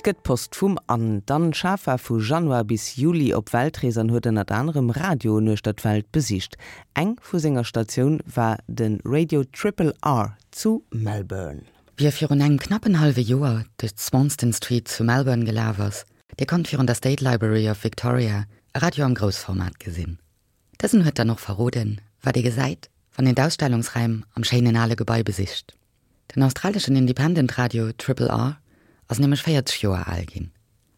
gëtt Post vum Anne. D'Anne Schaaf war vu Januar bis Juli op Weltrees an huet ënnert anerem Radioen uechter d'Welt besicht. Eng vu senger Statioun war de Radio Triple R zu Melbourne. Wie virun engem knappen hallwe Joer duerch d'Swanston Street zu Melbourne gelaf ass, dee konnt virun der State Library of Victoria e Radio am Groussformat gesinn. Dësen huet dann och verroden, wat ee gesäit, wann een d'Ausstellungsräim am schéinen ale Gebai besicht. Den australeschen Independent Radio Triple R ass nämlech 40 Joer al ginn.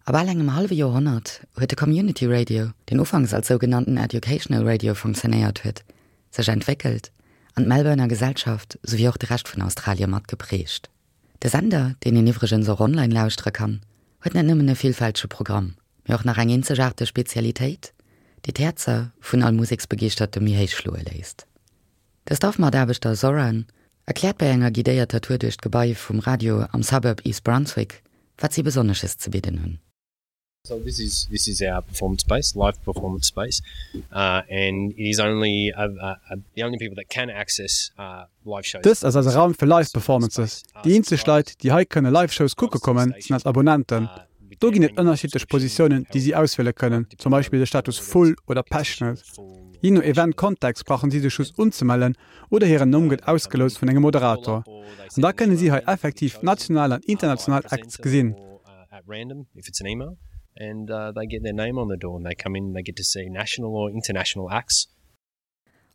A bal engem hallwe Joerhonnert huet de Community Radio, deen ufanks als sougenannten Educational Radio funktionéiert huet, sech entwéckelt an d'Melbourner Gesellschaft souwéi och de Rescht vun Australie mat geprägt. De Sender, deen een iwwregens och online lauschtere kann, huet net nëmmen e villfältege Programm, mee och nach eng eenzegaarteg Spezialitéit, déi d'Häerzer vun all Museksbegeeschterte méi héich schloe léisst. De Staff-Mataarbechter Zoran erkläert bei enger guidéierter Tour duerch d'Gebai vum Radio am Suburb East Brunswick, wat si Besonnesches ze bidden hunn. So this is this is our performance space, live performance space, uh, and it is only uh, uh, uh, the only people that can access uh, live shows. Dëst ass eise Raum fir Live Performances. Déi eenzeg Leit, déi hei kënne Live Shows kucke kommen, sinn eis Abonnenten. Do ginn et ënnerschiddlech Positiounen, déi si auswiele kënnen, zum Beispill de Status Full oder Passionate. Jee no Event-Kontext brauchen si sech just unzemellen oder hiren Numm gëtt ausgeloust vun engem Moderator. An da kënne si hei effektiv national an international Acts gesinn.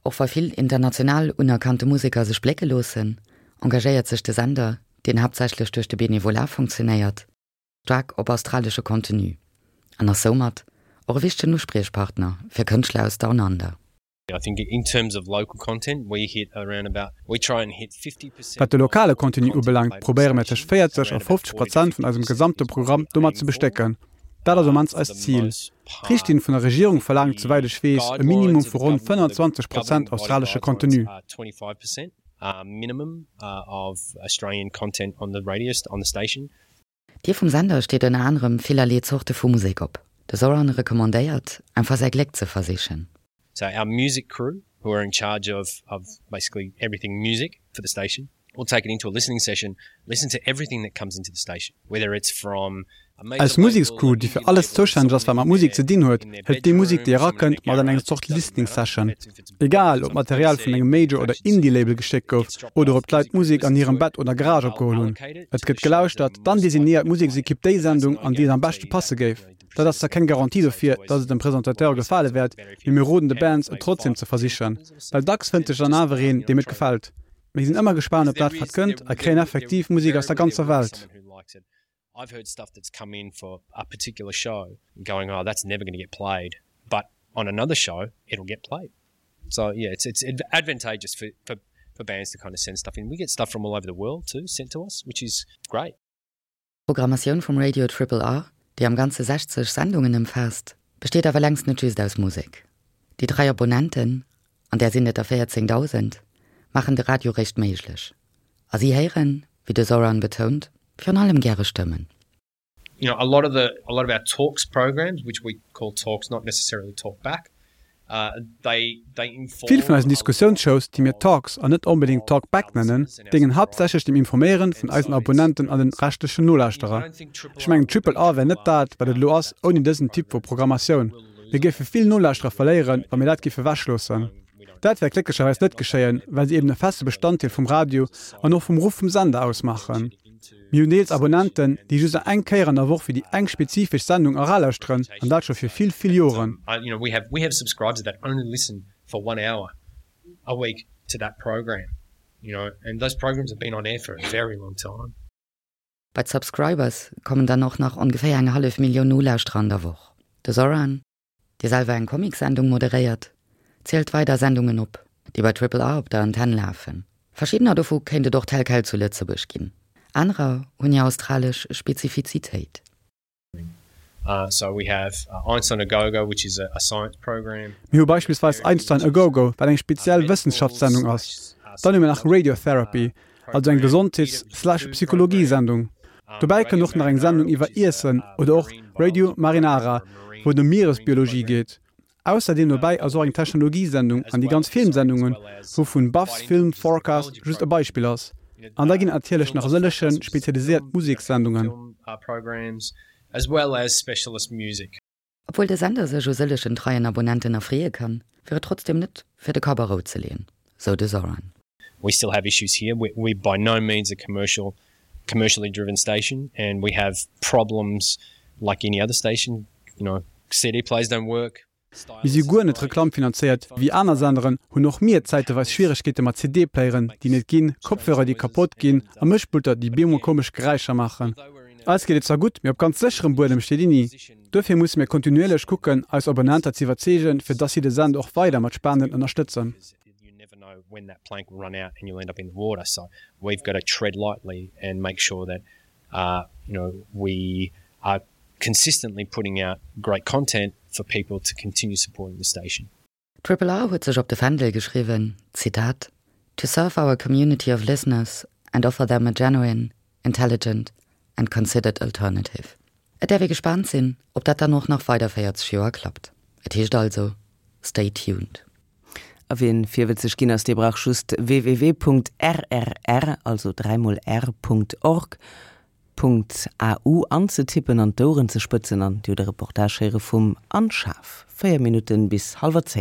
Och wa vill international unerkannte Museker sech blécke loossen, engagéiert sech de Sender, deen haaptsächlech duerch de Benevolat funktionéiert, staark op australesche Contenu an ass soumat och e wichtegen Uspriechpartner fir Kënschtler aus Down Under. Wat de lokale Contenu ubelaangt, probéiere mir tëscht 40 a 50 Prozent vun eisem gesamte Programm domat ze bestécken. Dat ass um mannst eist Zil. D'Richtlinn vun der Regierung verlaangt, souwäit ech weess, e Minimum vu ronn 25 Prozent australesche Contenu. D'Dier vum Sender steet ënner anerem villerlee Zorte vu Musek op. De Zoran recommandéiert, einfach säi Gléck ze versichen. So our music crew who are in charge of of basically everything music for the station will take it into a listening session, listen to everything that comes into the station, whether it's from a major Eis Musekscrew, déi fir alles zoustänneg ass wat mat Musek ze dinn huet, hëlt déi Musek déi erakënnt mat an eng Zort Listening Session. Egal, ob d'Material vun engem Major oder Indie-Label geschéckt gouf oder ob d'Leit d'Musek an hirem Bett oder Garage opgeholl hunn. Et gëtt gelauschtert, dann designéiert d'Museksekipp déi Sendung, an déi et am beschte passe géif. Dat ass zwar keng Garantie dofir, datt et dem Presentateur gefale wäert, mee mir roden de Bands, et trotzdeem ze versichen. Well dacks fënnt sech dann awer een, deem et gefält. Mir sinn ëmmer gespaant op dat, wat kënnt a kréien effektiv Musek aus der ganzer Welt. I've heard stuff that's come in for a particular show going oh that's never gonna get played but on another show it'll get played so yeah it's it's advantageous for for for bands to kind of send stuff in we get stuff from all over the world too sent to us which is great. D'Programmatioun vum Radio Triple R, déi am Ganze 60 Sendungen ëmfaasst, besteet awer längst net just aus Musek. Déi 3 Abonnenten, an där sinn et der 14.000, maachen de Radio réischt méiglech. A si héieren, wéi de Zoran betount, virun allem gäre Stëmmen. You know, a lot of the a lot of our talks programs, which we call talks, not necessarily talk back, uh, they they inform. Vill vun eisen Diskussiounsshows, déi mir Talks an net onbedéngt Talk Back nennen, déngen haaptsächlech dem Informéieren vun eisen Abonnenten an den reschtlechen Nolauschterer. Ech mengen, Triple R wär net dat, wat et elo ass, ouni dësen Typ vu Programmatioun. Mir géife vill Nolauschterer verléieren, wa mir dat géife wechloossen. Dat wäert glécklecherweis net geschéien, well se eben e feste Bestanddeel vum Radio an och vum Ruff vum Sender ausmaachen. Mir hunn deels Abonnenten, déi just eng Kéier an der Woch fir déi eng spezifesch Sendung eralauschteren, an dat scho fir vill, vill Joren. Bei d'Subscribers kommen dann och nach ongeféier eng hallef Millioun Nolauschterer an der Woch. De Zoran, dee selwer eng Comicsendung moderéiert, zielt weider Sendungen op, déi bei Triple R op der Antenn lafen. Verschiddener dovu kéint et och tel quel zu Lëtzebuerg ginn, anerer hunn hir australesch Spezifizitéit. Mir hu beispillsweis Einstein a Gogo, wat eng speziell Wëssenschaftssendung ass. Dann hu mir nach Radiotherapy, also eng Gesondheets slash Psychologie-Sendung. Dobäi kënnt och nach eng Sendung iwwer Iessen oder och Radio Marinara, wou et ëm Mieresbiologie geet. Ausserdeem dobäi ass och eng Technologie-Sendung an déi ganz Filmsendungen, wouvun Buff's Film Forecast just e Beispill ass. An da ginn et natierlech nach e sëllege spezialiséiert Musekssendungen. Obwuel de Sender sech u sëllegen treien Abonnenten erfreeë kann, wier et trotzdeem net fir de Kapp a Rou ze leeën, sou de Zoran. We still have issues here, we're by no means a commercial commercially driven station and we have problems like any other station, you know, CD players don't work. Mir si guer net reklammfinanzéiert. Wéi aner Senderen hunn och mir zäiteweis Schwieregkeete mat CD-Playeren, déi net ginn, Kopfhörer, déi kapott ginn a Mëschpulter, déi bemol komesch Geräischer maachen. Eis geet et zwar gutt, mee op ganz sécherem Buedem steet een ni. Duerfir musse mir kontinuierlech kucken, eis Abonnenter ze iwwerzeegen, fir dass si de Sender och weider mat Spenden ënnerstëtzen. You know we are consistently putting out great content for people to continue supporting the station. Triple R huet sech op de Fändel geschriwwen, Zitat, To serve our community of listeners and offer them a genuine, intelligent and considered alternative. Et däerf ee gespaant sinn, ob dat dann och nach weider 40 Joer klappt. Et heescht also, Stay tuned. A wien virwëtzeg ginn ass, dee brauch just www.rrr, also dräimol r, .org. .au anzetippen an d'Oueren ze spëtzen an Dir hutt e Reportage héiere vum Anne Schaaf. 4 Minutten bis hallwer 10.